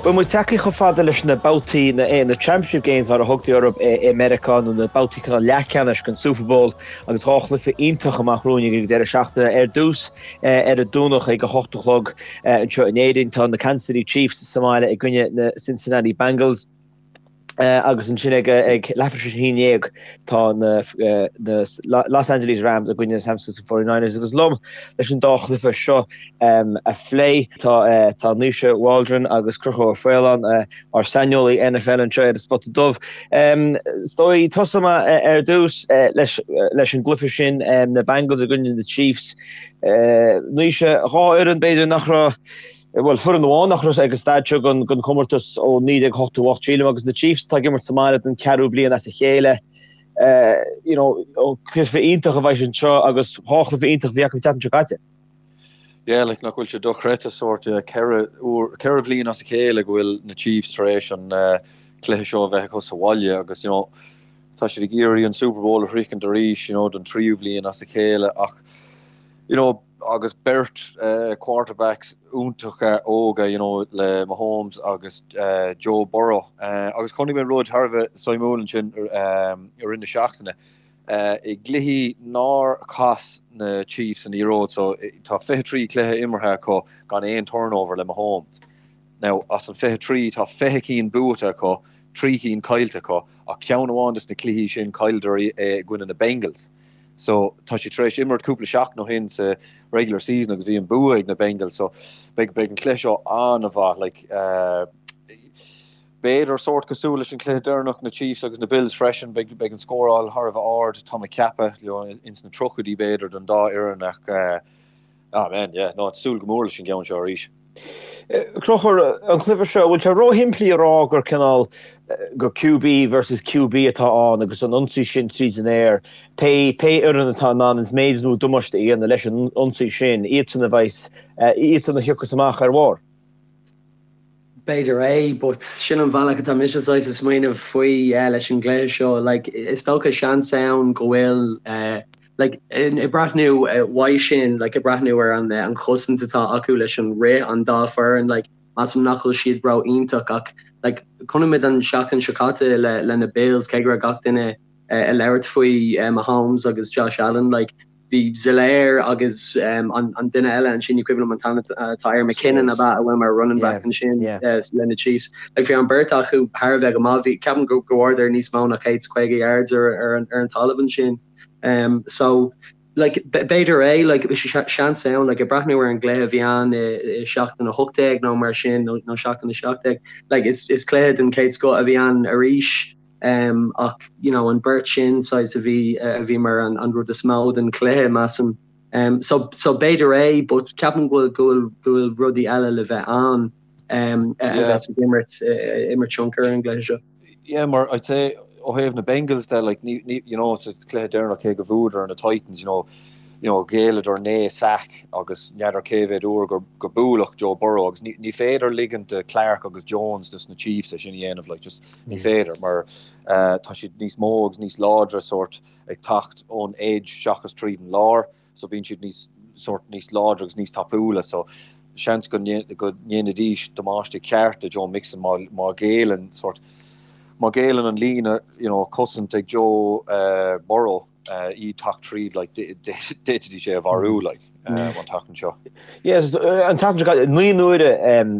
Bhuel, muid tagtha chomh fada leis na babhtaí, na Championship Games mar a thugtaí orthu i Meiriceá, nó na babhtaí cineál leathcheannais den Super Bowl agus 2 chluiche iontach amach romhainn ag an deireadh seachtaine. Ar dtús, ar an Domhnach ag a 8 a chlog anseo in Éirinn, tá na Kansas City Chiefs sa mbaile i gcoinne na Cincinnati Bengals. Agus ansin ag leathuair tar éis a 11 tá na Los Angeles Rams i gcoinne na San Francisco 49ers agus liom leis an dá chluiche seo a phlé tá tá Naoise Waldron agus Conchúr Ó Faoláin, ár saineolaí NFL anseo ar an Spota Dubh. Is dóigh tosóidh mé ar dtús leis leis an gcluiche sin, na Bengals i gcoinne na Chiefs. Naoise, 2 fhoireann b'fhéidir nach raibh Bhuel, foireann amháin nach raibh ag an staid seo den chomórtas ó 1988, sílim, agus na Chiefs atá ag imirt sa mbaile don cheathrú bliain as a chéile. You know, cluiche iontach a bheidh anseo agus 2 chluiche iontach a bhí acu an tseachtain seo caite. Yeah, like, nach bhfuil sé dochreidte sórt, yeah, 4 uair, 4 bhliain as a chéile go bhfuil na Chiefs tar éis an cluiche seo a bheith acu sa bhaile agus, you know, tá siad ag iarraidh an Super Bowl a shroichint arís, you know, don tríú bhliain as a chéile ach, you know, agus beirt quarterbacks iontacha óga, you know, le Mahomes agus Joe Burrow. Agus chonaic mé rud thar a bheith suimiúil ansin i rith na seachtaine. I gcluichí nár chas na Chiefs an liathróid, so tá 23 cluiche imeartha acu gan aon turnover le Mahomes. Now, as an 23 tá 20 cinn buaite acu, 3 cinn caillte acu, ach ceann amháin des na cluichí sin chailleadar é i gcoinne na Bengals. So tá siad tar éis imirt cúpla seachtain ó shin sa regular season agus bhí an bua ag na Bengals so beidh beidh an cluiche seo an-mhaith like b'fhéidir sórt cosúil leis an cluiche deireanach na Chiefs agus na Bills freisin beidh beidh an scóráil thar a bheith ard tá mé ag ceapadh you know ins na tríochaidí b'fhéidir don dá fhoireann ach Ah man, yeah, no, súil go mór leis an gceann seo arís. Conchúr, an cluiche seo, bhfuil sé róshimplí a rá gur cineál gur QB versus QB atá ann agus an ionsaí sin tríd an aer, pé pé fhoireann atá in ann an méid is mó damáiste a dhéanamh leis an ionsaí sin, iadsan a bheas, iadsan a thiocfas amach ar bharr? B'fhéidir é, but sin an bhealach atá mise saghas ag smaoineamh faoi leis an gcluiche seo. Like, is dócha seans ann go bhfuil Like, ag breathnú uaidh sin, like, ag breathnú ar an an chosaint atá acu leis an rith, an dá foireann, like, measaim nach bhfuil siad ró-iontach ach, like, chonaic muid an seachtain seo caite le le na Bills, cé go raibh gach duine ag labhairt faoi Mahomes agus Josh Allen, like, bhí Helaire agus an an duine eile ansin, ní cuimhin liom an t-ainm atá air, McKinnon ab ea, a bhfuil mar running back ansin le na Chiefs. Like, bhí an beirt acu thar a bheith go maith, bhí, ceapaim go go bhfuaireadar níos mó ná 150 yards ar ar an ar an talamh ansin. So, like, b'fhéidir é, like, seans ann, like, ag breathnú ar an gcluiche a bhí ann i seachtain 18 nó mar sin, nó seachtain 17, like, is, is cluiche den chéad scoth a bhí ann arís, ach, you know, an beirt sin, saghas, a bhí, a bhí mar an, an rud is mó den chluiche, measaim. So, so b'fhéidir é, but ceapaim go bhfuil, go bhfuil, go bhfuil rudaí eile le bheith ann, a bheas ag imirt, imirt tionchar ar an gcluiche seo. Yeah, mar I'd say ó thaobh na Bengals de, like, ní, ní, you know, sa chluiche deireanach cé go bhuadar na Titans, you know, you know, ghéilleadar 9 sack agus n'fheadar cé mhéad uair gur, gur buaileadh Joe Burrow agus ní, ní féidir ligint do Clark agus Jones dos na Chiefs é sin a dhéanamh, like, just ní féidir mar uh, tá siad níos mó agus níos láidre sort ag teacht ón edge seachas tríd an lár. so bíonn siad níos sórt níos láidre agus níos tapúla so seans go go ndéanfaidís damáiste ceart do Joe Mixon má má ghéilleann sórt má ghéilleann an líne you know cosaint ag Joe uh, Burrow uh, iad teacht tríd like d'fhéadfaidís é a mharú like uh, an tseachtain seo. Yes, an tseachtain seo caite 9 n-uaire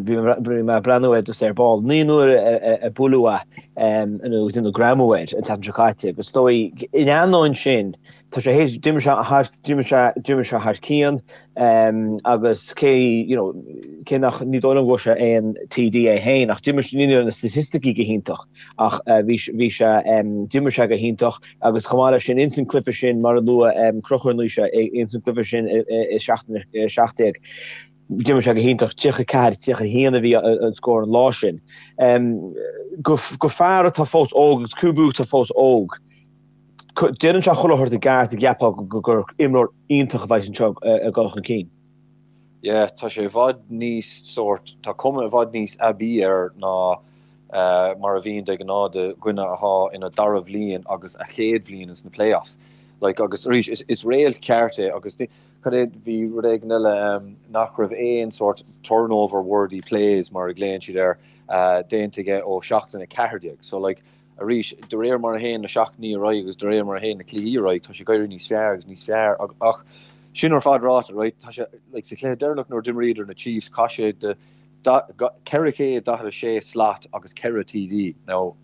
bhí mé ag breathnú air just ar ball, 9 n-uaire a buaileadh é nó déanadh greamú air an tseachtain seo caite agus is dóigh in ainneoin sin Tá sé théis, d'imir sé thar, d'imir sé, d'imir sé thar cionn agus cé, you know, cé nach, ní dóigh liom go bhfuair sé aon TD é féin ach d'imir sé, ní raibh na staitisticí go hiontach ach bhí, bhí sé, d'imir sé go hiontach agus chomh maith leis sin, ins an cluiche sin, mar a luaigh Conchúr Naoise, ins an cluiche sin i seachtain 17, d'imir sé go hiontach, 34, 31 a bhí an scór an lá sin. Go, go fear atá fós óg agus QB atá fós óg, Déanann sé chuile shórt i gceart a gceapfá gur imreoir iontach a bheas anseo ag dul chun cinn. Yeah, tá sé i bhfad níos sórt, tá cuma i bhfad níos aibí air ná mar a bhíonn de ghnáth do dhuine atá ina dara bhliain agus a chéad bhliain ins na playoffs. Like agus arís is is réalt ceart é agus cad é bhí rud éigin eile um, nach raibh aon sort turnover worthy plays mar a ghlaonn siad air uh, déanta aige ó seachtain 14. So like arís de réir mar a théann na seachtainí ar aghaidh agus de réir mar a théann na cluichí ar aghaidh tá sé ag éirí níos fearr agus níos fearr ach sin ar fad ráite right tá sé like sa chluiche deireanach nuair d'imríodar na Chiefs chaith sé de 446 slat agus 4 TD. Now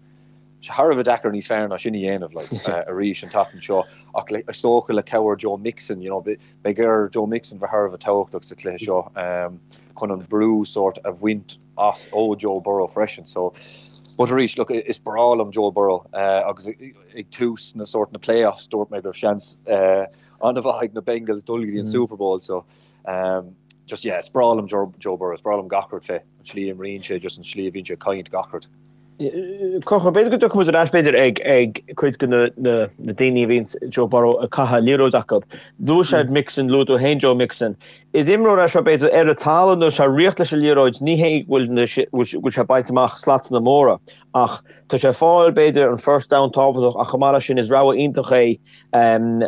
sé thar a bheith deacair níos fearr ná sin a dhéanamh like, arís an tseachtain seo ach le, is dócha le cabhair Joe Mixon, you know, beidh ar Joe Mixon bheith thar a bheith tábhachtach sa chluiche seo um, chun an brú sort a bhaint as ó Joe Burrow freisin. So, but arís, look, is breá liom Joe Burrow uh, agus ag tús na sort na playoffs dúirt mé go raibh seans uh, an-mhaith ag na Bengals dul go dtí an mm. Super Bowl so um, just yeah, is breá liom Joe, Joe Burrow, is breá liom gach rud fé an slí a imríonn sé just an slí a bhíonn sé ag caint gach rud. Conchúr, b'fhéidir go dtiocfaidh muid ar ais b'fhéidir ag ag cuid de na na na daoine a bhíonn Joe Burrow ag caitheamh liathróid acu. Luaigh sé Mixon, luaigh tú féin Joe Mixon. Is imreoir é seo b'fhéidir ar an talamh nuair sé ag rith leis an liathróid ní hé go bhfuil na go bhfuil sé baint amach slatanna móra ach tá sé ag fáil b'fhéidir an first down tábhachtach ach chomh maith leis sin is rogha iontach é um,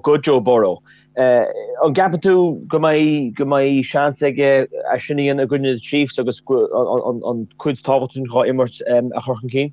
go Joe Burrow. An gceapann tú go mbeidh go mbeidh seans aige é sin a dhéanamh i gcoinne na Chiefs agus an cuid tábhachtach sin dhá imirt a chur chun cinn?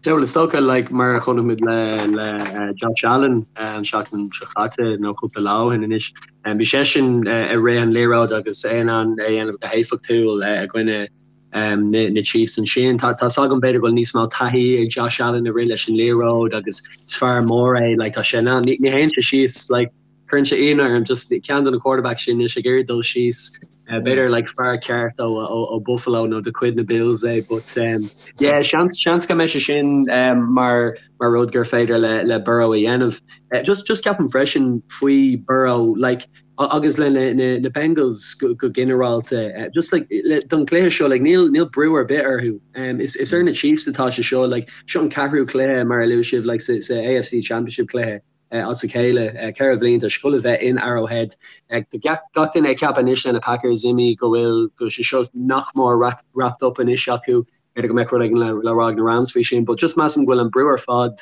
Yeah, well, is dócha, like, mar a chonaic muid le le Josh Allen an seachtain seo caite nó cúpla lá ó shin anois, bhí seisean ag rith an liathróid agus é in ann é a dhéanamh go héifeachtúil i gcoinne na Chiefs ansin. Tá tá's agam b'fhéidir go bhfuil níos mó taithí ag Josh Allen ag rith leis an liathróid agus is fear mór é like tá sé in ann ní théann sé síos like cuireann sé ionadh orm just ceann de na quarterbacks sin anois ag iarraidh dul síos uh, b'fhéidir like fear ceart ó, ó, ó Buffalo nó de chuid na Bills é but um, yeah seans seans go mbeidh sé sin um, mar mar rud gur féidir le le Burrow a dhéanamh. Uh, just just ceapaim freisin faoi Burrow like agus le na Bengals go ginearálta just like don chluiche seo like níl níl brú ar bith orthu. Um, is is ar na Chiefs atá sé seo like seo an ceathrú cluiche mar a luaigh sibh like sa sa AFC Championship cluiche uh, as a chéile uh, 4 bhliain tá sé ag gabháil a bheith in Arrowhead. Uh, gach duine ag ceapadh anois le na Packers imithe go bhfuil go sé seo nach mór wrapped up anois acu b'fhéidir go mbeadh rud éigin le le rá ag na Rams faoi sin, but just measaim go bhfuil an brú ar fad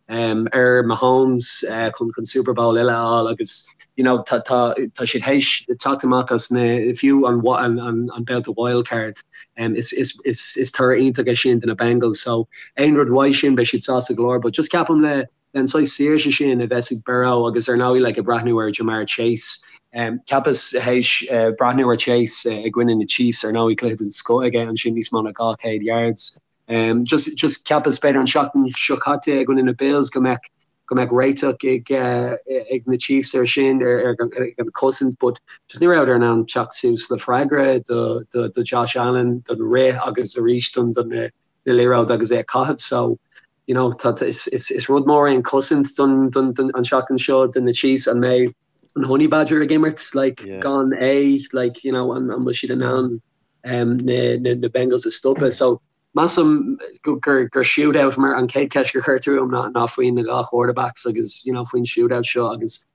ar Mahomes chun chun Super Bowl eile a fháil agus you know tá tá tá siad théis teacht amach as na fiú an an an babhta wild card um, is is is is toradh iontach é sin do na Bengals so aon rud uaidh sin beidh siad sásta go leor but just ceapaim le le an saghas saoirse sin a bheas ag Burrow agus ar ndóigh like ag breathnú ar Ja'Marr Chase um, cheapas théis uh, breathnú ar Chase uh, i gcoinne na Chiefs ar ndóigh cluiche den scoth aige ansin níos mó ná 200 yards Um, just, just cheapas b'fhéidir an seachtain seo caite i gcoinne na Bills go mbeadh go mbeadh réiteach ag, uh, ag na Chiefs ar sin ar, ar, ar an cosaint, but just ní rabhadar in ann teacht suas le freagra do, do, do Josh Allen, don rith agus arís don, don na, na liathróid agus é a caitheamh. So, you know, tá, is, is, is rud mór é an cosaint don, don, don, an seachtain seo do na Chiefs an mbeidh an Honey Badger ag imirt like, yeah. gan é like, you know, an, an bhfuil siad in ann na Bengals a stopadh. So measaim gur gur shootout mar an chéad cheist gur chuir tú orm ná ná faoin na dhá quarterbacks agus you know faoin shootout seo agus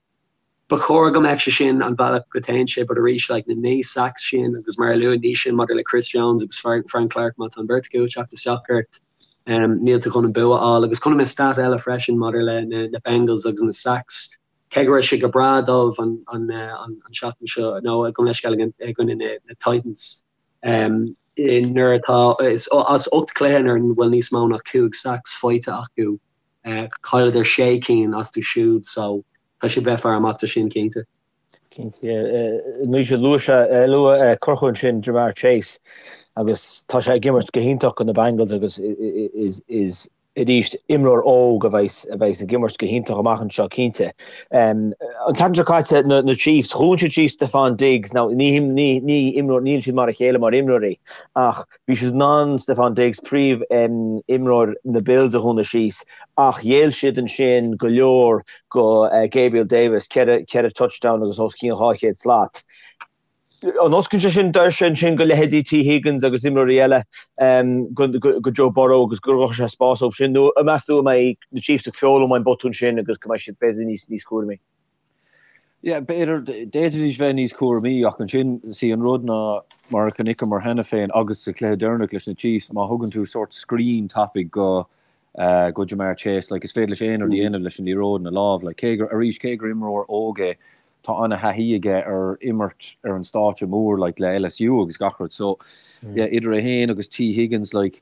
ba chóir go mbeadh sé sin an bealach go dtéann sé but arís like na 9 sacks sin agus mar a luaigh Naoise maidir le Chris Jones agus Frank Clark má tá an bheirt acu ag teacht isteach ort um, níl tú chun an bua a fháil agus chonaic mé stat eile freisin maidir le na, na Bengals agus na sacks cé go raibh sé go breá dóibh an seachtain seo, nó gabh mo leithscéal i gcoinne na Titans, nuair atá, as 8 cluiche nuair a bhfuil níos mó ná 5 sacks faighte acu, chailleadar 6 cinn astu siúd, so tá siad bheith faire amach do sin cinnte. Cinnte, yeah. Naoise, luaigh sé, luaigh Conchúr ansin Ja'Marr Chase agus tá sé ag imirt go hiontach do na Bengals agus is, is, arís, imreoir óg a bheas a bheas ag imirt go hiontach amach anseo, cinnte. An tseachtain seo caite, na na Chiefs, dhún siad síos Stefon Diggs, now ní ní ní imreoir, níl siad mar a chéile mar imreoirí, ach bhí siad in ann Stefon Diggs, príomh imreoir na Bills a dhúnadh síos, ach ghéill siad ansin go leor go Gabriel Davis, 4 4 touchdown agus os cionn 200 slat. An osclaíonn sé sin doirse ansin go leithéidí Tee Higgins agus imreoirí eile go Joe Burrow agus go gcruthóidh sé spás dóibh sin nó an meas tú go mbeidh na Chiefs ag foghlaim ón botún sin agus go mbeidh siad b'fhéidir níos níos cúramaí? Yeah, b'fhéidir, d'fhéadfaidís bheith níos cúramaí ach ansin, see an rud ná mar a chonaiceamar cheana féin agus sa chluiche deireanach leis na Chiefs, má thugann tú sórt screen tapaidh go. Go Ja'Marr Chase, like is féidir leis aon rud a dhéanamh leis an liathróid ina lámh, like cé gur, arís, cé gur imreoir óg é, tá an-thaithí aige ar imirt ar an stáitse mór, like le LSU agus gach rud, so yeah, idir é féin agus Tee Higgins, like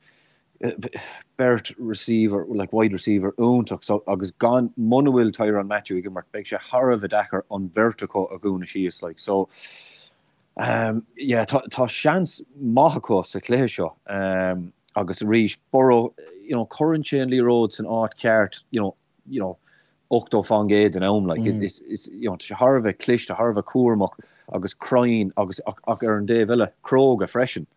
beirt receiver, like wide receiver iontach, so agus gan, muna bhfuil Tyrann Mathieu ag imirt, beidh sé thar a bheith deacair an bheirt acu a dhúnadh síos, like so yeah, tá, tá seans maith acu sa chluiche seo agus arís, Burrow, you know, cuireann sé an liathróid san áit cheart, you know, you know, 80% den am, like, is, is, you know, tá sé thar a bheith cliste, thar a bheith cúramach agus cruinn agus ach, ach ar an dtaobh eile, cróga freisin.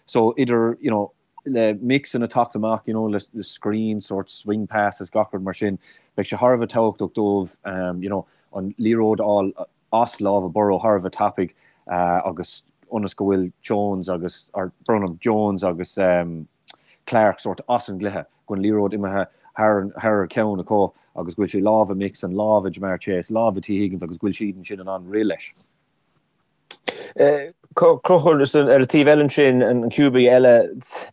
So idir, you know, le Mixon ag teacht amach, you know, le, le screen, sort swing passes, gach rud mar sin, beidh sé thar a bheith tábhachtach dóibh, you know, an liathróid a fháil as lámha Burrow thar a bheith tapaidh agus ionas go bhfuil Jones agus, or brón orm, Jones agus Clark sort as an gcluiche, go bhfuil an liathróid imithe thar, thar a ceann acu agus go bhfuil sé i lámha Mixon, lámha Ja'Marr Chase, lámha Tee Higgins agus go bhfuil siad ansin in ann rith leis. Conchúr, ar an taobh eile ansin, an QB eile,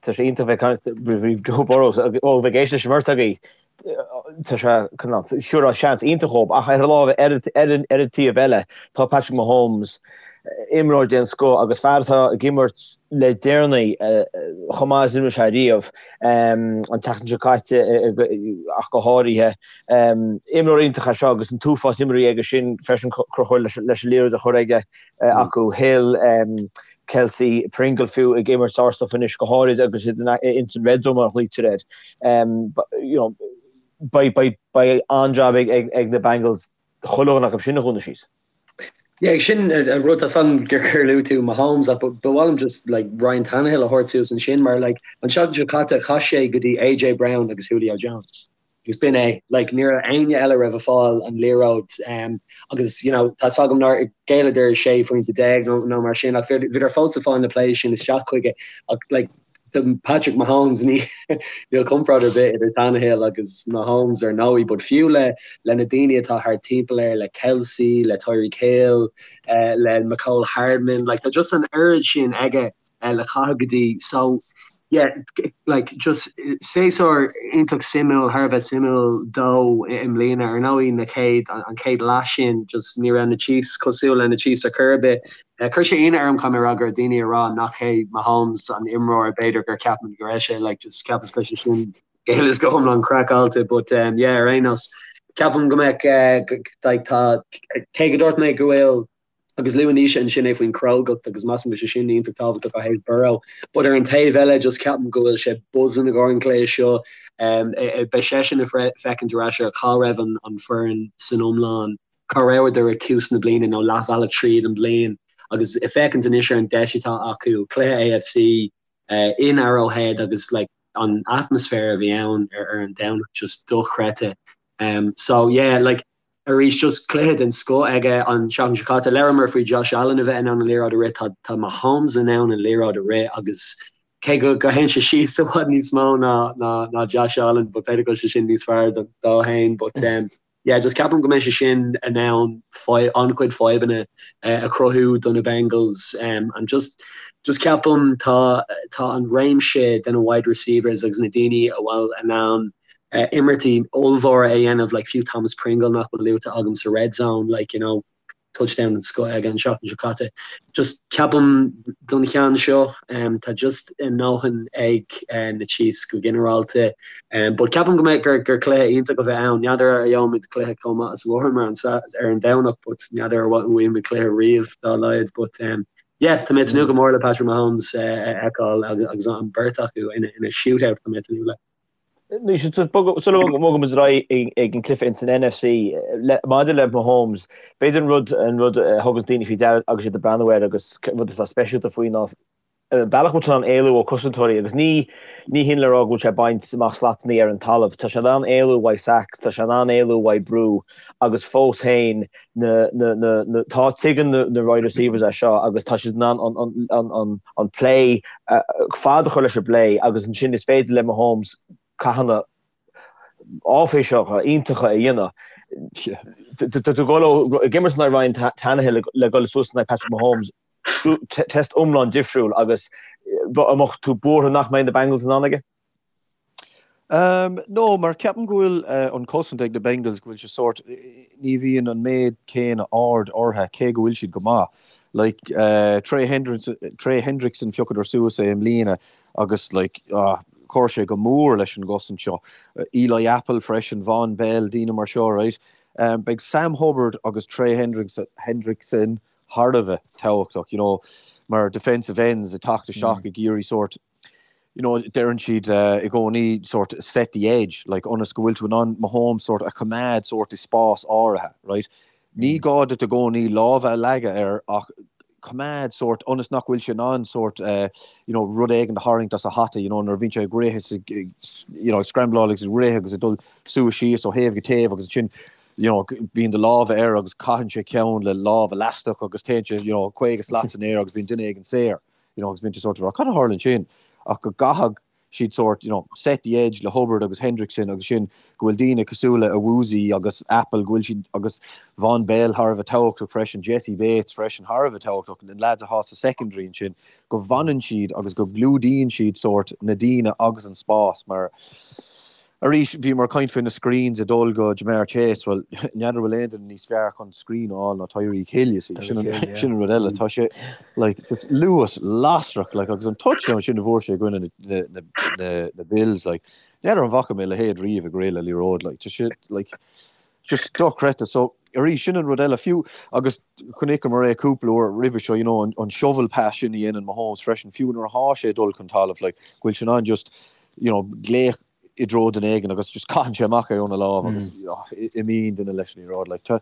tá sé iontach bheith ag caint faoi Joe Burrow, ó bheith ag éisteacht leis an mbeirt agaibh, tá sé thabharfá seans iontach dhób, ach ar an lámh, ar an taobh eile, tá Patrick Mahomes, imreoir den scoth agus fear atá ag imirt le deireanaí chomh maith is a d'imir sé riamh, an tseachtain seo caite ach go háirithe. Imreoir iontach é seo agus an t-uafás imreoirí aige sin freisin Conchúr leis an liathróid a chur aige acu. Hill, Kelce, Pringle fiú ag imirt sár-stuif anois go háirid agus iad ins an red zone mar a ghlaoitear air. Beidh an-jab ag na Bengals chuile dhuine acu sin a dhúnadh síos. Yeah, sin an rud tá san gur gur luaigh tú Mahomes ach ba mhaith liom just like Ryan Tannehill a thabhairt suas ansin mar like an tseachtain seo caite chaith sé go dtí AJ Brown agus Julio Jones. Agus b'in é. Like, ní raibh éinne eile a raibh ag fáil an liathróid um, agus you know, tá 's agam nár ghéilleadar 16 phointe nó, nó mar sin ach bhíodar fós ag fáil na plays sin isteach chuige ach like, do Patrick Mahomes ní níl comparáid ar bith idir Tannehill agus Mahomes ar ndóigh, but fiú le le na daoine atá thart timpeall air, le Kelce, le Tyreek Hill, uh, le Mecole Hardman, like, tá just an oiread sin aige le caitheamh go dtí so yeah like just séasúr iontach suimiúil thar a bheith suimiúil dó i mbliana ar ndóigh na chéad an chéad leath sin just ní raibh na Chiefs cosúil le na Chiefs ar chor ar bith. Chuir sé ionadh orm caithfidh mé a rá go raibh daoine ag rá nach hé Mahomes an imreoir b'fhéidir gur cheap muid go raibh sé like just cheapas go raibh sé sin go huile is go hiomlán craiceáilte but um, yeah ar aon nós ceapaim go mbeadh uh, like tá cé go dúirt mé go bhfuil Agus luaigh Naoise ansin é faoin chrógacht agus measaim go bhfuil sé sin iontach tábhachtach ó thaobh Burrow. But ar an taobh eile just ceapaim go bhfuil sé buzzing i gcomhair an chluiche seo. Beidh seisean ag féachaint ar ais ar cá raibh an foireann san iomlán, cá rabhadar ag tús na bliana nó leathbhealach tríd an bliain agus ag féachaint anois ar an deis atá acu, cluiche AFC in Arrowhead agus like an atmaisféar a bhí ann ar an Domhnach just dochreidte. So yeah like Arís, just cluiche den scoth aige an tseachtain seo caite. Labhramar faoi Josh Allen a bheith in ann an liathróid a rith, tá tá Mahomes in ann an liathróid a rith agus cé go go théann sé síos i bhfad níos mó ná ná ná Josh Allen but b'fhéidir go bhfuil sé sin níos fearr do dó fhéin but um, yeah, just ceapaim go mbeidh sé sin in ann an-chuid fadhbanna uh, a chruthú do na Bengals um, and just just ceapaim tá tá an réimse de na wide receivers agus na daoine a bhfuil in ann imirtí ollmhóra a dhéanamh like fiú Thomas Pringle nach bhfuil luaite agam sa red zone like you know touchdown den scoth aige an seachtain seo caite. Just ceapaim don cheann seo um, tá just a ndóthain ag uh, na Chiefs go ginearálta um, but ceapaim go mbeidh gur, gur cluiche iontach a bheidh ann. N'fheadar ar gheobhaimid cluiche chomh maith is a bhfuaireamar an, ar an Domhnach but n'fheadar ar bhfaighimid cluiche riamh dá laghad but um, yeah, tá mé ag tnúth go mór le Patrick Mahomes uh, a fheiceáil agus an beirt acu ina, ina shootout tá mé ag tnúth le. Sula mbogaimid ar aghaidh ag an cluiche ins an NFC, maidir le Mahomes, b'fhéidir an rud an rud a thuganns daoine faoi deara agus iad ag breathnú air agus rud atá speisialta faoi ná an bealach go bhfuil sé in ann éalú ó cosantóirí agus ní ní hin le rá go bhfuil sé ag baint amach slatannaí ar an talamh. Tá sé in ann éalú uaidh sacks, tá sé in ann éalú uaidh brú agus fós féin na, na, na, na, tá, tuigeann na, na wide receivers é seo agus tá siad in ann an, an, an, an, an play, fad a chur leis an bplay agus ansin is féidir le Mahomes cathanna áiféiseacha, iontacha a dhéanamh. Tá tú ag dul ó ag imirt in aghaidh Ryan Tannehill le dul suas in aghaidh Patrick Mahomes, test iomlán difriúil agus an mbeadh tú buartha nach mbeidh na Bengals in ann aige? No, mar ceapaim go bhfuil an cosaint ag na Bengals, go bhfuil sé sórt, ní bhíonn an méid céanna aird orthu, cé go bhfuil siad go maith. Like, Trey Hendrickson, Trey Hendrickson phiocadar suas é i mbliana agus like, ah, chuir sé go mór leis an gcosaint seo. Eli Apple freisin, Vonn Bell, daoine mar seo, right? Beidh Sam Hubbard agus Trey Hendrickson thar a bheith tábhachtach, you know, mar defensive ends ag teacht isteach ag iarraidh sórt, you know, deireann siad i gcónaí sort set the edge, like ionas go bhfuil tú in ann Mahomes sort a choimeád sort i spás áirithe, right? Ní gá duit i gcónaí lámha a leagadh air ach coimeád sort ionas nach bhfuil sé in ann sort you know, rud éigin a tharraingt as a hata, you know, nuair a bhíonn sé ag rith is ag, you know, ag scrambláil agus ag rith agus ag dul suas síos ó thaobh go taobh agus ansin you know, bíonn do lámha air agus caitheann sé ceann le lámh leaisteach agus téann sé, you know, 50 slat san aer agus bíonn duine éigin saor. You know, agus bíonn tú sort of rá, cad a tharla ansin? Ach go gcaithfidh siad sort, you know, set the edge le Hubbard agus Hendrickson agus sin go bhfuil daoine cosúil le Awuzie agus Apple, go bhfuil siad agus Vonn Bell thar a bheith tábhachtach freisin, Jessie Bates freisin thar a bheith tábhachtach, na lads atá sa secondary ansin, go bhfanann siad agus go gclúdaíonn siad sort na daoine agus an spás mar Arís, bhíomar ag caint faoi na screens ag dul go Ja'Marr Chase, bhuel, n'fheadar bhfuil aon duine níos fearr chun screen a fháil ná Tyreek Hill, you see. Sin an, sin an rud eile. Tá sé, like, just luas lasrach, like, agus an touchdown sin a bhfuair sé i gcoinne na, na, na, na, na Bills, like, n'fheadar an bhfaca mé a leithéid riamh ag rith le liathróid, like, tá sé, like, just dochreidte. So, arís, sin an rud eile, fiú, agus chonaiceamar é cúpla uair roimhe seo, you know, an, an shovel pass sin a dhéanann Mahomes freisin, fiú nuair atá sé ag dul chun talamh, like, go bhfuil sé in ann just, you know, glaoch i dtreo duine éigin agus just caitheann sé amach é óna lámh agus imíonn duine leis an liathróid. Like, tá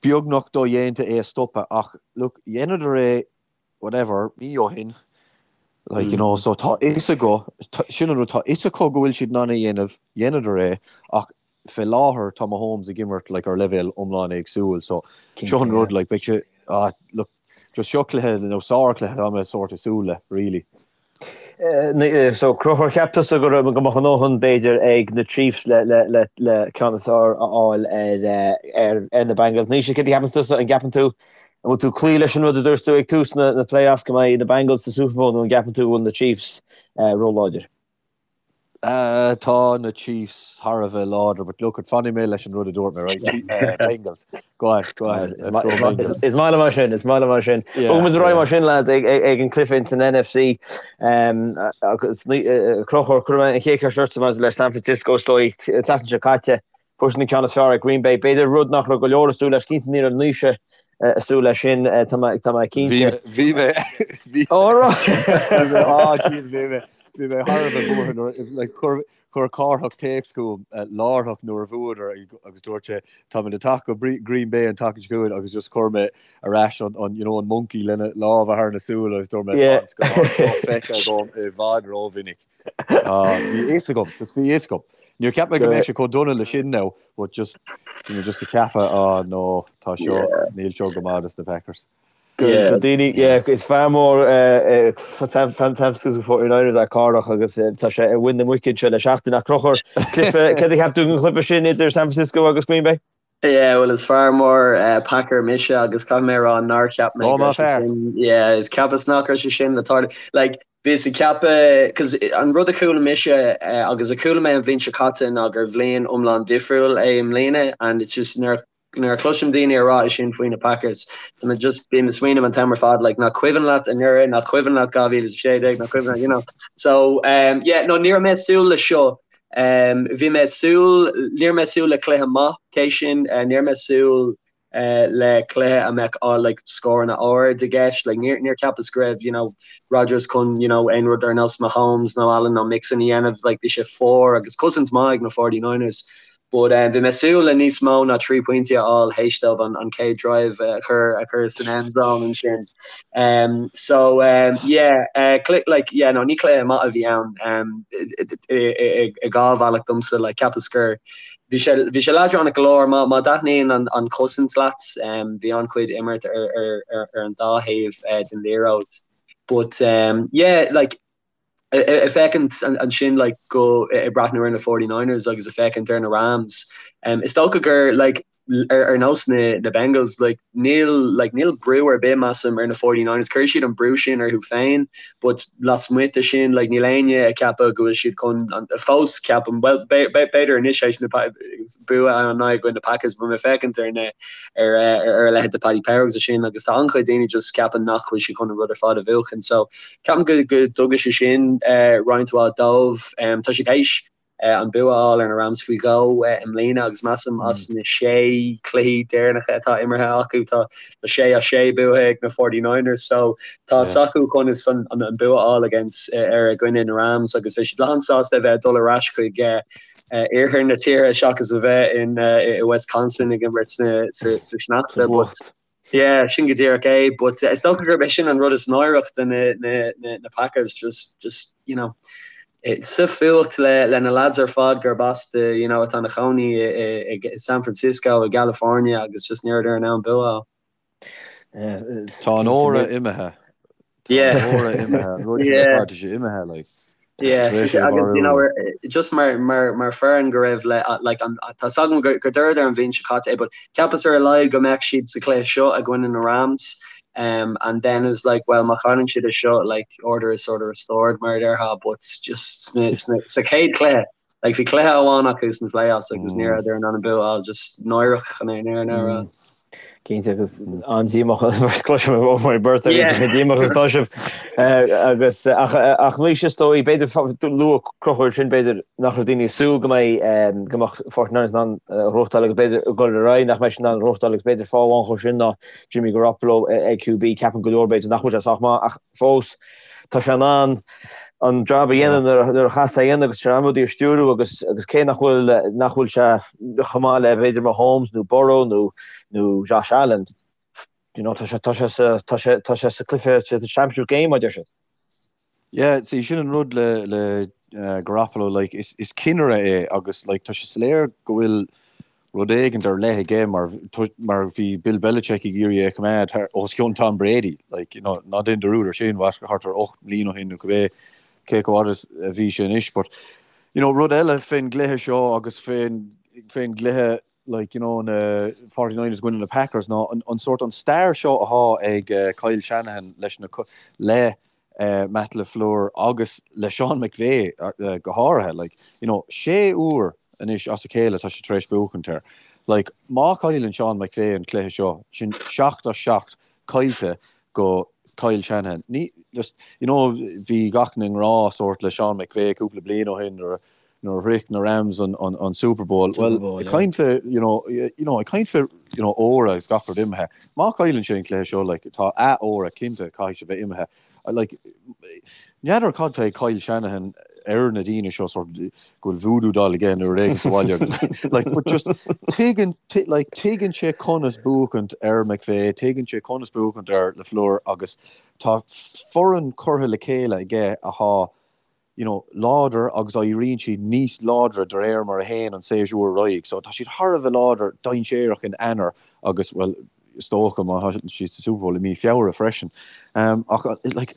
beagnach dodhéanta é a stopadh ach look, dheineadar é whatever, mí ó shin, like, you know, so tá fhios acu, sin an rud, tá fhios acu go bhfuil siad in ann é a dhéanamh, dheineadar é ach fé láthair tá Mahomes ag imirt like, ar leibhéal iomlán éagsúil so seo an rud like, beidh sé, ah, look, just seo cluiche nó sárchluiche tá mé sort ag súil le, really. So Conchúr, cheap tusa go raibh go mbeadh a ndóthain b'fhéidir ag na Chiefs le le le le ceann is fearr a fháil ar ar ar na Bengals. Naoise, céard a cheapann tusa? An gceapann tú an bhfuil tú ag cloí leis an rud a dúirt tú ag tús na na playoffs go mbeidh na Bengals sa Super Bowl nó an gceapann tú go bhfuil na Chiefs róláidir? Tá na Chiefs thar a bheith láidir, but look, fanfaidh mé leis an rud a dúirt mé, right? Bengals. Go on, go on. Let's go Bengals. Is maith liom mar sin, is maith liom mar sin. Bogfaidh muid ar aghaidh mar sin, lads, ag ag an cluiche ins an NFC. Agus Conchúr, cuirfidh mé an chéad cheist ortsa maidir le San Francisco, is dóigh, an tseachtain seo caite, fuair siad an ceann is fearr ar Green Bay. B'fhéidir rud nach raibh go leor ag súil leis, cinnte ní raibh Naoise ag súil leis sin, tá mé tá mé cinnte. Bhí mé, bhí mé. Ó, right. Bhí mé, ah, jeez, bhí mé. Bhí mé thar a bheith buartha nuair, like, chuir, chuir Cárthach téacs chugam láithreach nuair a bhuadar agus dúirt sé, táimid ag teacht go Green Bay an tseachtain seo chugainn agus just chuir mé ar ais an, an, you know, an monkey lena lámha thar na súile agus dúirt mé, tá an scannán seo feicthe agam i bhfad rómhinic. Ah, bhí a fhios agam, just bhí a fhios agam. Níor cheap mé go mbeadh sé chomh dona le sin now, but just, bhí mé just ag ceapadh, ah no, tá seo, níl seo go maith dos na Packers. Do daoine, yeah, is fear mór San Francisco 49ers é Cárthach agus tá sé ar mhuin na muice anseo le seachtain. Ach Conchúr, cluiche, céard a cheap tú den chluiche sin idir San Francisco agus Green Bay? Yeah, well is fear mór Packer mise agus caithfidh mé a rá nár cheap mé go raibh sé sin, yeah, is cheapas nach raibh sé sin le tarlú. Like, bhíos ag ceapadh, cos an rud a chuala mise agus a chuala mé an bhliain seo caite ná gur bhliain iomlán difriúil é i mbliana and it's just nuair Nuair a chloisim daoine ag rá é sin faoi na Packers, tá mé just, bím ag smaoineamh an t-am ar fad, like, nach cuimhin leat anuraidh, nach cuimhin leat 2016, nach cuimhin leat, you know. So, um, yeah, no, ní raibh mé ag súil le seo. Um, bhí mé ag súil, ní raibh mé ag súil le cluiche maith, cé sin, uh, ní raibh mé ag súil uh, le cluiche a mbeadh uh, like, scóranna ard i gceist, like, níor, níor cheapas go raibh, you know, Rodgers chun, you know, aon rud ar nós Mahomes nó Allen nó Mixon a dhéanamh, like, bhí sé fuar agus cosaint maith ag na 49ers. But bhí mé ag súil le níos mó ná 3 pointí a fháil théis dóibh an chéad drive a chur a chur san end zone ansin. Um, so um, yeah, uh, like, yeah, no, ní cluiche maith a bhí ann um, i dhá bhealach domsa, like, cheapas gur bhí sé bhí sé leadránach go leor má má thaitníonn an, an chosaint leat um, bhí an-chuid imirt ar, ar, ar, ar an dá thaobh uh, den liathróid. But um, yeah, like, Ag féachaint ansin like go ag breathnú ar na 49ers agus ag féachaint ar na Rams, is dócha gur like. ar nós na na Bengals like níl like níl brú ar bith measaim ar na 49ers chuir siad an brú sin orthu féin but lasmuigh de sin like níl éinne ag ceapadh go bhfuil siad chun an fós ceapaim well b'fhéidir anois éis na bua an i gcoinne na Packers but mé féachaint ar na ar ar a leithéid de Paddy Power agus sin agus tá an-chuid daoine just ceapann nach bhfuil siad chun an rud ar fad a bhuachan so ceapaim go go dtugann sé sin uh, roinnt mhaith dóibh um, tá siad théis uh, an bua a fháil ar na Rams faoi dhó uh, i mbliana agus measaim as na sé cluichí deireanacha atá imeartha acu tá tá sé as sé buaithe ag na 49ers so tá yeah. s'acu conas an, an, an bua a fháil against uh, ar a gcoinne na Rams agus bheidh siad lán sásta a bheith dul ar ais chuig uh, iarthar na tíre seachas a bheith in i Wisconsin ag imirt sa sneachta. But yeah, sin go díreach é. But is dócha gurb é sin an rud is náireach do na, na, na, na Packers, just, just, you know, sa fuacht le, le na lads ar fad gurb as do, you know, atá ina chónaí i, i, i San Francisco, i gCalifornia agus just ní rabhadar in ann bua a fháil. Tá an aura imithe. Tá an aura imithe. An rud sin ar fad, tá sé imithe, like. Yeah, agus you know, just mar mar mar foireann go raibh le like an tá agam gur gur dúradar an bhliain seo caite é, but cheapas ar a laghad go mbeadh siad sa chluiche seo i gcoinne na Rams. Um, and then it was like, well, má chailleann siad é seo, like order is sort of restored mar a déarfá, but just sna, sna, sa chéad chluiche, Like bhí cluiche amháin acu sna playoffs agus ní rabhadar in ann an bua a fháil just náireach chun é an a rá. Cinnte agus an-díomách cloisim ó my birthday díomách is tá sibh agus ach ach anois is dóigh b'fhéidir luaigh Conchúr sin b'fhéidir nach raibh daoine ag súil go mbeidh go mbeadh 49ers in ann gnóthachtáil agus b'fhéidir dul ar aghaidh nach mbeidh siad in ann gnóthachtáil agus b'fhéidir fáth amháin dhó sin ná Jimmy Garoppolo ag QB ceapann go leor b'fhéidir nach bhfuil sé sách maith ach fós tá sé in ann an jab a dhéanamh nuair a chaithfeas é a dhéanamh agus tá sé in ann rudaí a stiúrú agus agus cé nach bhfuil nach bhfuil sé chomh maith le b'fhéidir Mahomes nó Burrow nó nó Josh Allen you know tá sé tá sé sa tá sé tá sé sa cluiche sa championship game a deir siad. Yeah, see sin an rud le le uh, Garoppolo like is is cinnire é agus like tá sé soiléir go bhfuil rud éigin ar leith aige mar mar bhí Bill Belichick ag iarraidh é a choimeád thar os cionn Tom Brady like you know ná déan dearúd ar sin what thart ar 8 mbliana ó shin nó cibé cé chomh fada is a bhí sé anois but you know rud eile fén gcluiche seo agus fén fén gcluiche like you know na 49ers i gcoinne na Packers ná an, an sort an stair seo athá ag uh, Kyle Shanahan leis na le Matt LaFleur agus le Sean McVay go háirithe. Like, you know, sé uair anois as a chéile tá sé tar éis buachaint air. Like, má chailleann Sean McVay an cluiche seo, sin 7 as 7 caillte go Kyle Shanahan. Ní, just, you know, bhí gach éinne i ngrá sórt le Sean McVay cúpla bliain ó shin nuair nuair a shroich na Rams an, an, an Super Bowl. Super Bowl, well, ag caint fé, you know, you know, ag caint fé, you know, aura agus gach rud imithe. Má chailleann sé an cluiche seo, like, tá a aura cinnte caithfidh sé bheith imithe. Like, n'fheadar cad tá ag Kyle Shanahan ar na daoine seo sort go bhfuil voodoo doll aige nó rud éigin sa bhaile agus like, but just tuigeann like, tuigeann sé conas buachaint ar McVay, tuigeann sé conas buachaint ar LaFleur agus tá foireann curtha le chéile aige athá you know, láidir agus éiríonn siad níos láidre de réir mar a théann an séasúr ar aghaidh. So tá siad thar a bheith láidir dainséarach in Eanáir agus, well, is dócha má tá siad sa Super Bowl i mí Feabhra freisin. Um, ach, like,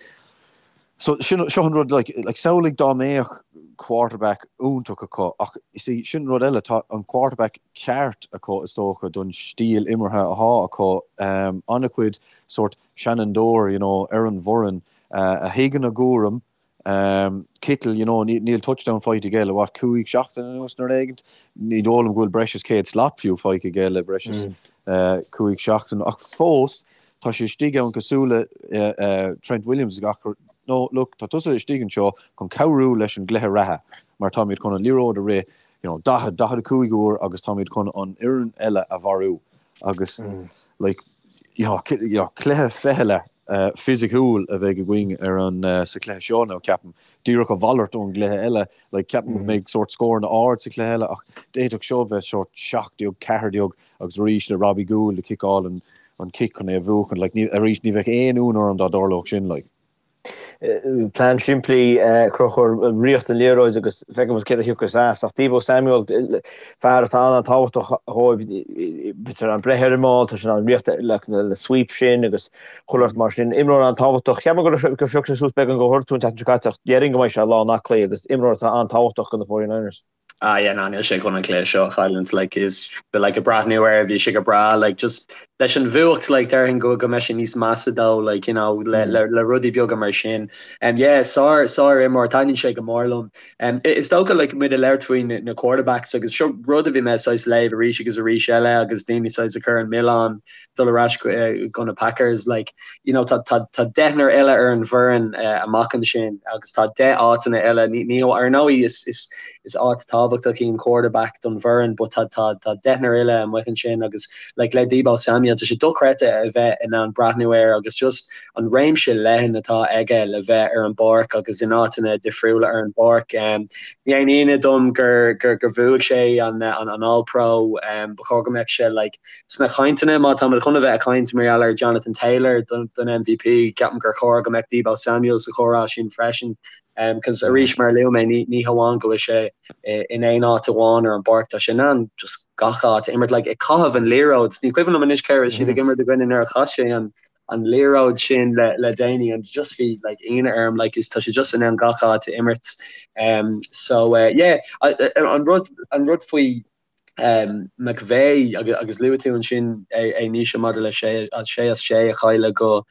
so sin, seo an rud, like, like, samhlaigh dá mbeadh quarterback iontach acu, ach see, sin rud eile, tá an quarterback ceart acu is dócha don stíl imeartha athá acu, um, an-chuid sort seanfhondúir, you know, ar an bhfoireann, uh, a thuigeann a gcúram, Kittle, you know, níl touchdown faighte aige le what, 5 seachtain anuas nó rud éigin. Ní dóigh liom go bhfuil breis is 100 slat fiú faighte aige le breis is 5 seachtain. Ach fós, tá sé istigh ann cosúil le Trent Williams gach no, look, tá tusa istigh anseo chun cabhrú leis an gcluiche reatha mar táimid chun an liathróid a rith, you know, 40, 45 uair agus táimid chun an fhoireann eile a mharú. Agus, like, you know, cluiche ficheallach fisiciúil a bheidh againn ar an sa chluiche seo nó ceapaim díreach a mhalairt ón gcluiche eile like ceapaim go mbeidh sórt scóranna ard sa chluiche eile ach d'fhéadfadh seo bheith sórt 17 14 agus arís le Robbie Gould ag ciceáil an an cic chun é a bhuachan like ní arís ní bheadh aon ionadh orm dá dtarlódh sin like. Plean simplí, Conchúr, rith an liathróid agus feicfidh muid céard a thiocfas as. Ach Deebo Samuel, fear atá an-tábhachtach dhóibh, b'fhéidir an breith ar an mball, tá sé in ann rith le sweep sin agus chuile shórt mar sin. Imreoir an-tábhachtach. Cheap mé gur phioc sé suas beagán de ghortú an tseachtain seo caite ach déarfainn go mbeidh sé lán aclaí agus imreoir atá an-tábhachtach do na 49ers. Ah yeah ná níl sé chun an cluiche seo a chailliúint like is but like ag breathnú air bhí sé go breá like just leis an bhuacht like déarfainn go go mbeidh sé níos measa dó like you know le le le rudaí beaga mar sin. Um yeah sár sár imreoir taitníonn sé go mór liom. Um is dócha like muid ag labhairt faoi na na quarterbacks agus seo rud a bhí mé saghas léamh arís agus arís eile agus daoine saghas ag cur an milleán dul ar ais go na Packers like you know tá tá tá deichniúr eile ar an bhfoireann amach ansin agus tá 10 áiteanna eile ní ní ar ndóigh is is is áit tábhachtach í an quarterback don bhfoireann but tá tá tá deichniúr eile amuigh ansin agus like le Deebo Samuel tá sé dochreidte a bheith in ann breathnú air agus just an réimse leathan atá aige le bheith ar an bpáirc agus in áiteanna difriúla ar an bpáirc. Um, ní haon ionadh dom gur gur gur bhuaigh sé an an an All Pro um, ba chóir go mbeadh sé like Sna cainteanna, má táimid chun a bheith ag caint mar gheall ar Jonathan Taylor don MVP, ceapaim gur chóir go mbeadh Deebo Samuel sa chomhrá sin freisin. Cos arís, mar a luaigh mé, ní hamháin go bhfuil sé in aon áit amháin ar an bpáirc, tá sé in ann just gach áit a imirt. Like, ag caitheamh an liathróid, ní cuimhin liom anois cé a raibh siad ag imirt i gcoinne nuair a chaith sé an an liathróid sin le le déanaí and just bhí like ionadh orm like is tá sé just in ann gach áit a imirt. Um, so uh, yeah, an rud an rud faoi McVay agus luaigh tú ansin é Naoise maidir le sé as sé a chailleadh go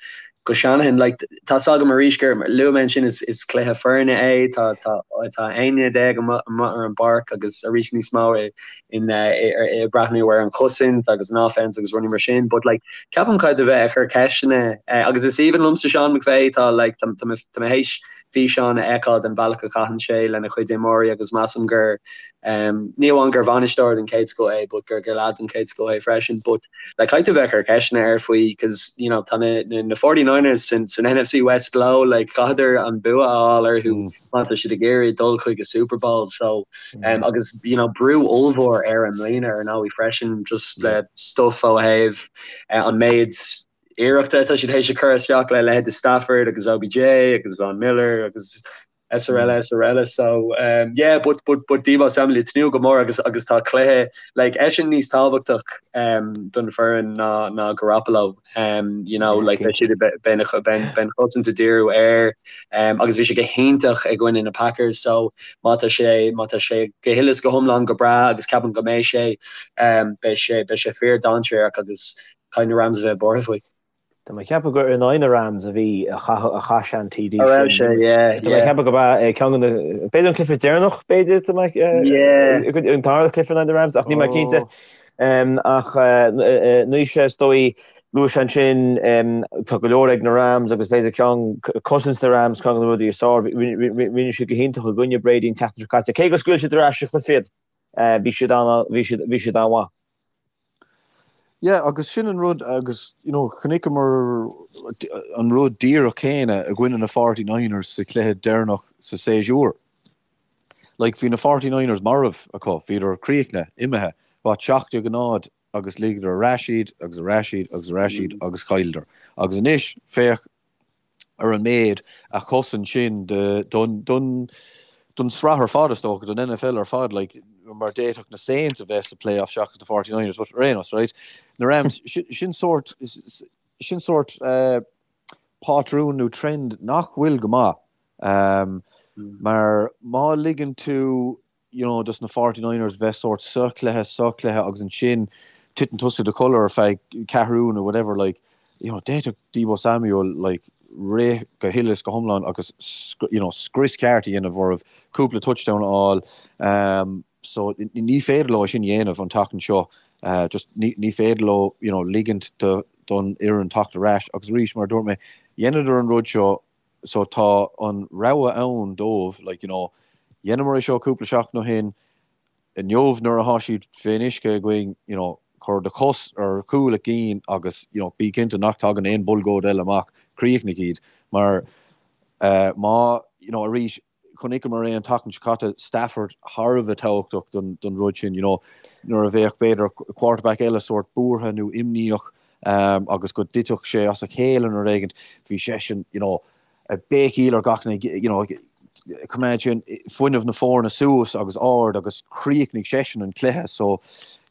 go Shanahan. Like, tá's agam arís gur luaigh mé ansin is is cluiche foirne é, tá tá tá 11 duine amuigh ar an bpáirc agus arís níos mó i in i breathnú ar an chosaint agus an offense agus rudaí mar sin. But like ceapaim caithfidh tú bheith ag cur ceisteanna agus is aoibhinn liomsa Sean McVay tá like tá tá tá mé théis físeáin a fheiceáil den bhealach a chaitheann sé lena chuid imreoirí agus measaim gur Ní amháin gur bhainisteoir den chéad scoth é but gur gur leaid den chéad scoth é freisin. But like caithfidh tú bheith ag cur ceisteanna air faoi cause you know tá na na na 49ers san san NFC West leo like chaithfeadar an bua a fháil orthu má tá siad ag iarraidh dul chuig an Super Bowl so um, agus you know brú ollmhór air i mbliana ar ndóigh freisin just le stuff ó thaobh uh, an méid iarrachta atá siad théis a chur isteach le leithéid de Stafford agus OBJ agus Von Miller agus srl srl so um, yeah but but but Deebo Samuel tnúth go mór agus agus tá cluiche like eisean níos tábhachtach um, don foireann ná ná Garoppolo um, you know like beidh siad beidh an chosaint ag díriú air um, agus bhí sé go hiontach i gcoinne na Packers so má tá sé má tá sé go huile is go hiomlán go breá agus ceapaim go mbeidh sé um, beidh sé beidh sé fíor dainséarach agus caithfidh na Rams a bheith buartha faoi. Tá mé ag ceapadh gur in aghaidh na Rams a bhí, a chaith sé an TD sin. A raibh sé, yeah, Tá mé ag ceapadh go b'ea é ceann de na, b'fhéidir an cluiche deireanach, b'fhéidir, tá mé, an tarna cluiche in aghaidh na Rams, ach níl mé cinnte. Ach Naoise, is dóigh, luaigh sé ansin, tá go leor ag na Rams agus b'fhéidir ceann, cosaint na Rams, ceann de na rudaí is fearr, rinne siad go hiontach i gcoinne Brady an tseachtain seo caite. Cé gur scaoil siad ar ais sa chluiche iad, bhí siad bhí siad an-mhaith. Yeah, agus sin an rud agus you know chonaiceamar an rud díreach céanna i gcoinne na Forty Niners sa chluiche deireanach sa séasúr. Like bhí na Forty Niners marbh acu, bhíodar críochnaithe, imithe, what 17-0 agus ligeadar ar ais iad agus ar ais iad agus ar ais iad agus chailleadar. Agus anois féach ar an méid a chosain sin don don sraith ar fad is dócha, don NFL ar fad, like, mar d'fhéadfadh na Saints a bheith sa playoff seachas na 49ers, but ar aon nós, right, na Rams, sin sórt, sin sórt uh, pátrún nó trend nach bhfuil go maith. Um, mar má ligeann tú you know, dos na 49ers bheith sórt sa chluiche, sa chluiche agus ansin titeann tusa i do chodladh ar feadh ceathrún nó whatever, like, you know, d'fhéadfadh Deebo Samuel, like, rith go huile is go hiomlán agus, you know, scrios ceart a dhéanamh orthu, cúpla touchdown a fháil. Um, so ní féidir leo sin a dhéanamh an tseachtain seo. Uh, just ní, ní féidir leo, you know, ligint do, don fhoireann teacht ar ais agus arís, mar a dúirt mé, dheineadar an rud seo So tá an rogha ann dóibh, like, you know, dheineamar é seo cúpla seachtain ó shin, inniu nuair atá siad fén uisce againn, you know, cuir do chos ar chúl a gcinn agus, you know, bí cinnte nach dtagann aon bhulgóid eile amach, críochnaigh iad. Mar eh, má, you know, arís, chonaiceamar é an tseachtain seo caite, Stafford thar a bheith tábhachtach don, don rud sin, you know, nuair a bheadh b'fhéidir quarterback eile sórt buartha nó imníoch, agus go dtitfeadh sé as a chéile nó rud éigin, bhí seisean, you know, ag béicíl ar gach duine, you know, coimeád sin fuinneamh na foirne suas agus ard agus chríochnaigh seisean an cluiche. So,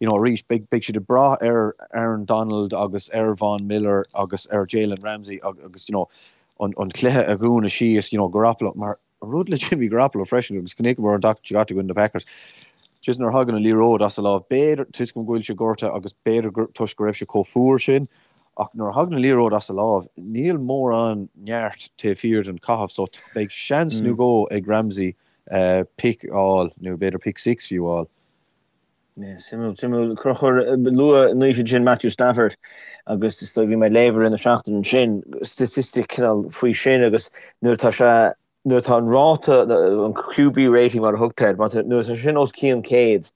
you know, arís, beidh, beidh siad ag brath ar Aaron Donald agus ar Von Miller agus ar Jalen Ramsey agus, you know, an, an cluiche a dhúnadh síos, you know, Garoppolo, mar an rud le Jimmy Garoppolo freisin agus chonaiceamar an tseachtain seo caite i gcoinne na Packers. Just nuair a thagann an liathróid as a lámh, b'fhéidir, toisc go bhfuil sé gortaithe agus b'fhéidir gur toisc go raibh sé chomh fuar sin, ach nuair a thagann an liathróid as a lámh, níl mórán neart taobh thiar den chaitheamh so beidh seans nó dhó ag Ramsey pick a fháil nó b'fhéidir pick six fiú a fháil. Suimiúil, suimiúil. Conchúr, luaigh Naoise ansin Matthew Stafford agus is dóigh bhí mé ag léamh i rith na seachtaine ansin statistic cineál faoi sin agus nuair atá sé nuair atá an ráta, an QB rating mar a thugtar air, nuair atá sin os cionn 100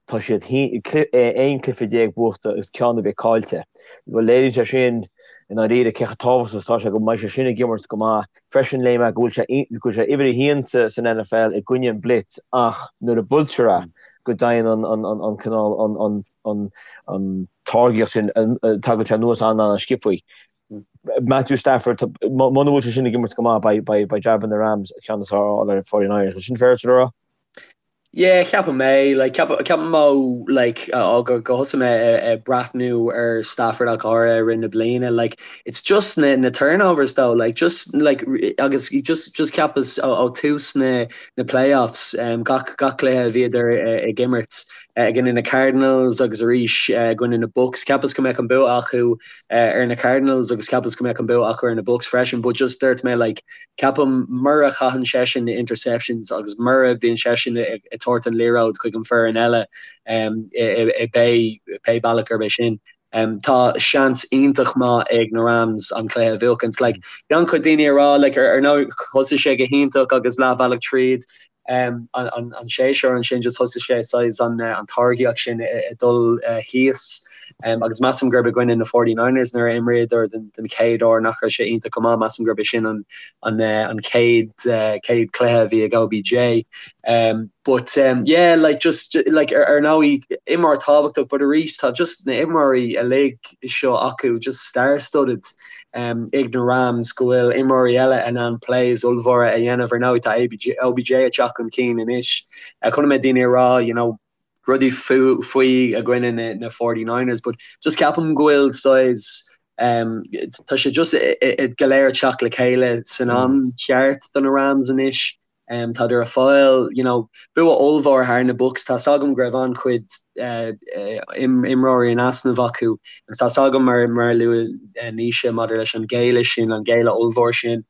tá siad 11 cluiche buachta agus ceann ar bith caillte. Bhuel léiríonn sé sin i ndáiríre cé chomh tábhachtach is atá sé go mbeidh sé sin ag imirt go maith. Freisin léigh mé go bhfuil sé go bhfuil sé uimhir a haon san NFL i gcoinne an blitz ach nuair a buailtear é go dtéann an an an an cineál an an an an táirgeacht sin tagann sé anuas an-an-sciobthaí. Matthew Stafford muna bhfuil sé sin ag imirt go maith beidh beidh beidh jab na Rams ceann is fearr a fháil ar an 49ers. Bhfuil sin fair le rá? Yeah, ceapaim é. Like, ceapaim ó, like, ó go go thosaigh mé ag breathnú ar Stafford ach go háirithe i rith na bliana, like, it's just na na turnovers though, like, just, like, agus just just cheapas ó ó tús na na playoffs, um, gach gach cluiche a bhíodar ag imirt, i gcoinne na Cardinals agus arís i gcoinne na Bucs, cheapas go mbeadh an bua acu ar na Cardinals agus cheapas go mbeadh an bua acu ar na Bucs freisin, but just dúirt mé, like, Ceapaim mura chaitheann seisean na interceptions agus mura bhíonn seisean ag tabhairt an liathróid chuig an foireann eile i pé bealach gurb é sin, tá seans iontach maith ag na Rams an cluiche a bhuachaint. Like, bhí an-chuid daoine ag rá like, ar ndóigh thosaigh sé go hiontach agus leathbhealach tríd an séasúr ansin just thosaigh sé saghas an táirgeacht sin ag dul thíos agus measaim gurb i gcoinne na 49ers nuair a imríodar den chéad uair nach raibh sé iontach go maith, measaim gurb é sin an chéad chéad cluiche a bhí ag OBJ. But yeah like just like ar ndóigh imreoir tábhachtach but arís tá just na imreoirí uilig seo acu just star-studded. ag na Rams go bhfuil imreoirí eile in ann plays ollmhóra a dhéanamh. Ar ndóigh tá OBJ ag teacht chun cinn anois. Chonaic mé daoine ag rá you know rudaí faoi i gcoinne na na 49ers but just ceapaim go bhfuil saghas tá sé just go léir ag teacht le chéile san am cheart do na Rams anois. Tádar ag fáil you know bua ollmhór thar na Bucs. Tá's agam go raibh an-chuid imreoirí in easnamh acu agus tá's agam mar mar a luaigh Naoise maidir leis an ghéilleadh sin, an géilleadh ollmhór sin.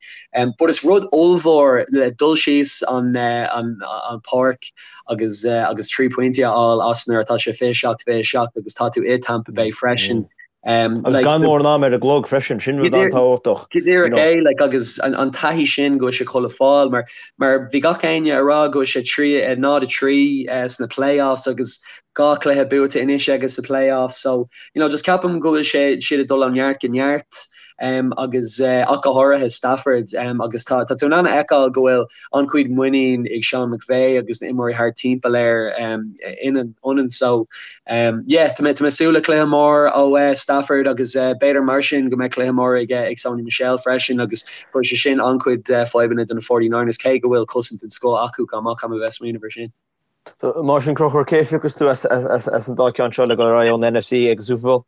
But is rud ollmhór le dul síos an an an páirc agus agus 3 pointí a fháil as nuair atá sé 27 27 agus tá tú i Tampa Bay freisin. Agus gan mórán am ar an gclog freisin, sin rud an-tábhachtach. Go díreach é, like, agus an taithí sin go bhfuil sé chun le fáil, mar mar bhí gach éinne ag rá go bhfuil sé 3, 0 3 sna playoffs agus dhá chluiche buaite anois aige sa playoffs, so, you know, just ceapaim go bhfuil sé siad ag dul ó neart go neart. agus ach go háirithe Stafford agus tá tá tú in ann a fheiceáil go bhfuil an-chuid muinín ag Sean McVay agus na imreoirí thart timpeall air ionann so yeah tá mé tá mé ag súil le cluiche mór ó Stafford agus b'fhéidir mar sin go mbeidh cluiche mór ag ag Sony Michel freisin agus cuirfidh sé sin an-chuid fadhbanna do na 49ers cé go bhfuil cosaint den scoth acu chomh maith caithfidh mé bheith ag smaoineamh ar sin. Mar sin Conchúr cé a phiocfas tú as as an dá ceann seo le dul ar aghaidh ón NFC ag an Super Bowl?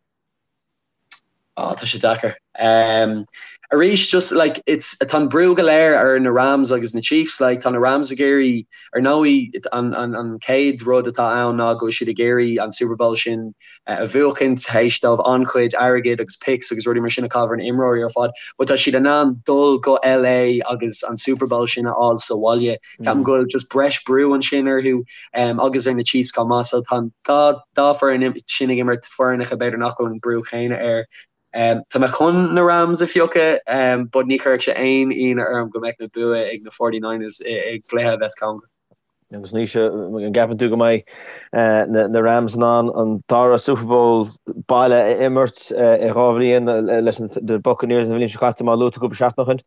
Oh, tá sé deacair. Um, arís, just like, it's, tá an brú go léir ar na Rams agus na Chiefs, like, tá na Rams ag iarraidh, ar ndóigh, an, an, an chéad rud atá ann ná go bhfuil siad ag iarraidh an Super Bowl sin a bhuachaint, théis dóibh an-chuid airgid agus picks agus rudaí mar sin a chaitheamh ar na imreoirí ar fad, but tá siad in ann dul go LA agus an Super Bowl sin a fháil sa bhaile. Ceapaim go bhfuil just breis brú ansin orthu agus ar na Chiefs chomh maith, so tá an dá, dá foireann sin ag imirt foireannacha b'fhéidir nach bhfuil an brú chéanna air. Tá mé chun na Rams a phiocadh but ní chuirfeadh sé aon ionadh orm go mbeadh na bua ag na 49ers i gcluiche a bheas cóngarach. Agus Naoise, an gceapann tú go mbeidh na Rams in ann an dara Super Bowl baile a imirt i 2 bhliain leis na Buccaneers an bhliain seo caite mar a luaigh tú cúpla seachtain ó shin?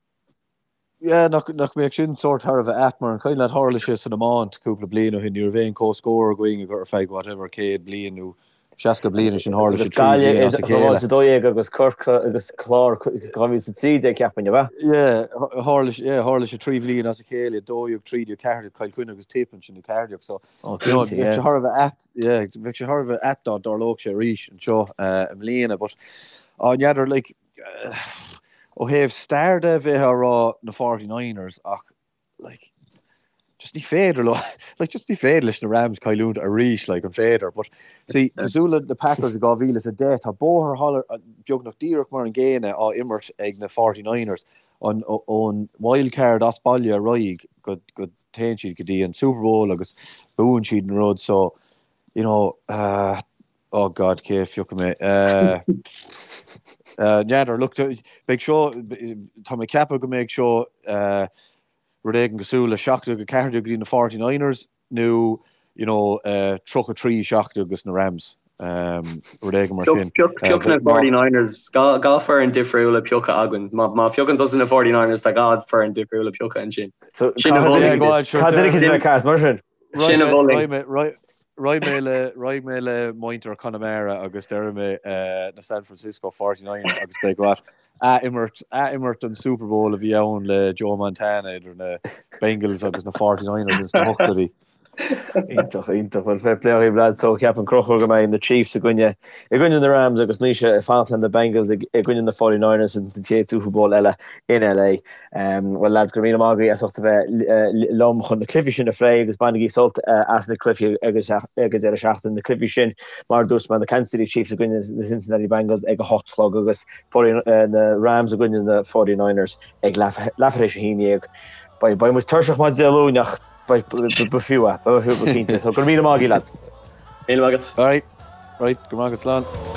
Yeah, nach, nach mbeadh sin sórt thar a bheith ait, mar an cuimhin leat tharla sé san iomáint cúpla bliain ó shin, ní raibh aon comhscór againn ar feadh whatever 100 bliain nó 60 bliain ansin tharla sé 3 bhliain as a chéile. 2012 agus Corcaigh agus Clár 2013 ceapaim, ab ea? Yeah, tharla sé, yeah, tharla sé 3 bhliain as a chéile, 12, 13, 14, Cill Chainnigh agus Tip ansin i 14, so Oh, you know, cinnte, bheadh sé thar a bheith ait, yeah, bheadh sé thar a bheith ait dá dtarlódh sé arís anseo uh, i mbliana, but á n'fheadar, like, Ó thaobh stair de, bheifeá ag rá na 49ers ach like, Just ní féidir leo, like just ní féidir leis na Rams cailliúint arís, like an féidir? But see, cosúil le na Packers i 2010, tá bóthar thall beagnach díreach mar an gcéanna á imirt ag na 49ers, an ón wild card as baile ar aghaidh go go téann siad go dtí an Super Bowl agus buann siad an rud so you know uh, oh God cé a phiocfaidh mé uh, uh, n'fheadar look beidh seo tá mé ag ceapadh go mbeidh seo uh, rud éigin cosúil le 17 14 go dtí na 49ers nó you know 33 17 dos na Rams, rud éigin mar sin. Pioc na 49ers, 2 foireann difriúla pioctha againn. Má phiocann tusa na 49ers tá 2 foireann difriúla pioctha ansin. Sin a mholfainn. Cad duine a bheith ceart mar sin? Sin a mholfainn. Raghaidh mé le raghaidh mé le muintir Chonamara agus déarfaidh mé na San Francisco 49ers agus beidh what Ath-imirt, ath-imirt an Super Bowl a bhí ann le Joe Montana idir na Bengals agus na 49ers ins na hochtóidí. Iontach, iontach. Bhuel, fair play dhaoibh lads. So ceapann Conchúr go mbeidh na Chiefs i gcoinne, i gcoinne na Rams agus Naoise ag fanacht le na Bengals i gcoinne na 49ers ins an chéad Super Bowl eile in LA. Bhuel lads, go raibh míle maith agaibh as ucht a bheith liom chun na cluichí sin a phlé agus bainigí sult as na cluichí ag an deireadh seachtaine. Na cluichí sin, mar a dúirt mé, na Kansas City Chiefs i gcoinne na Cincinnati Bengals ag a 8 a chlog agus na Rams i gcoinne na 49ers ag leathuair tar éis a 11. Beidh muid tuirseach maidin Dé Luain ach b'fhiú é, b'fhiú go cinnte. So go raibh míle maith agaibh lads. Míle maith agat. Alright, right, go raibh maith agat, slán.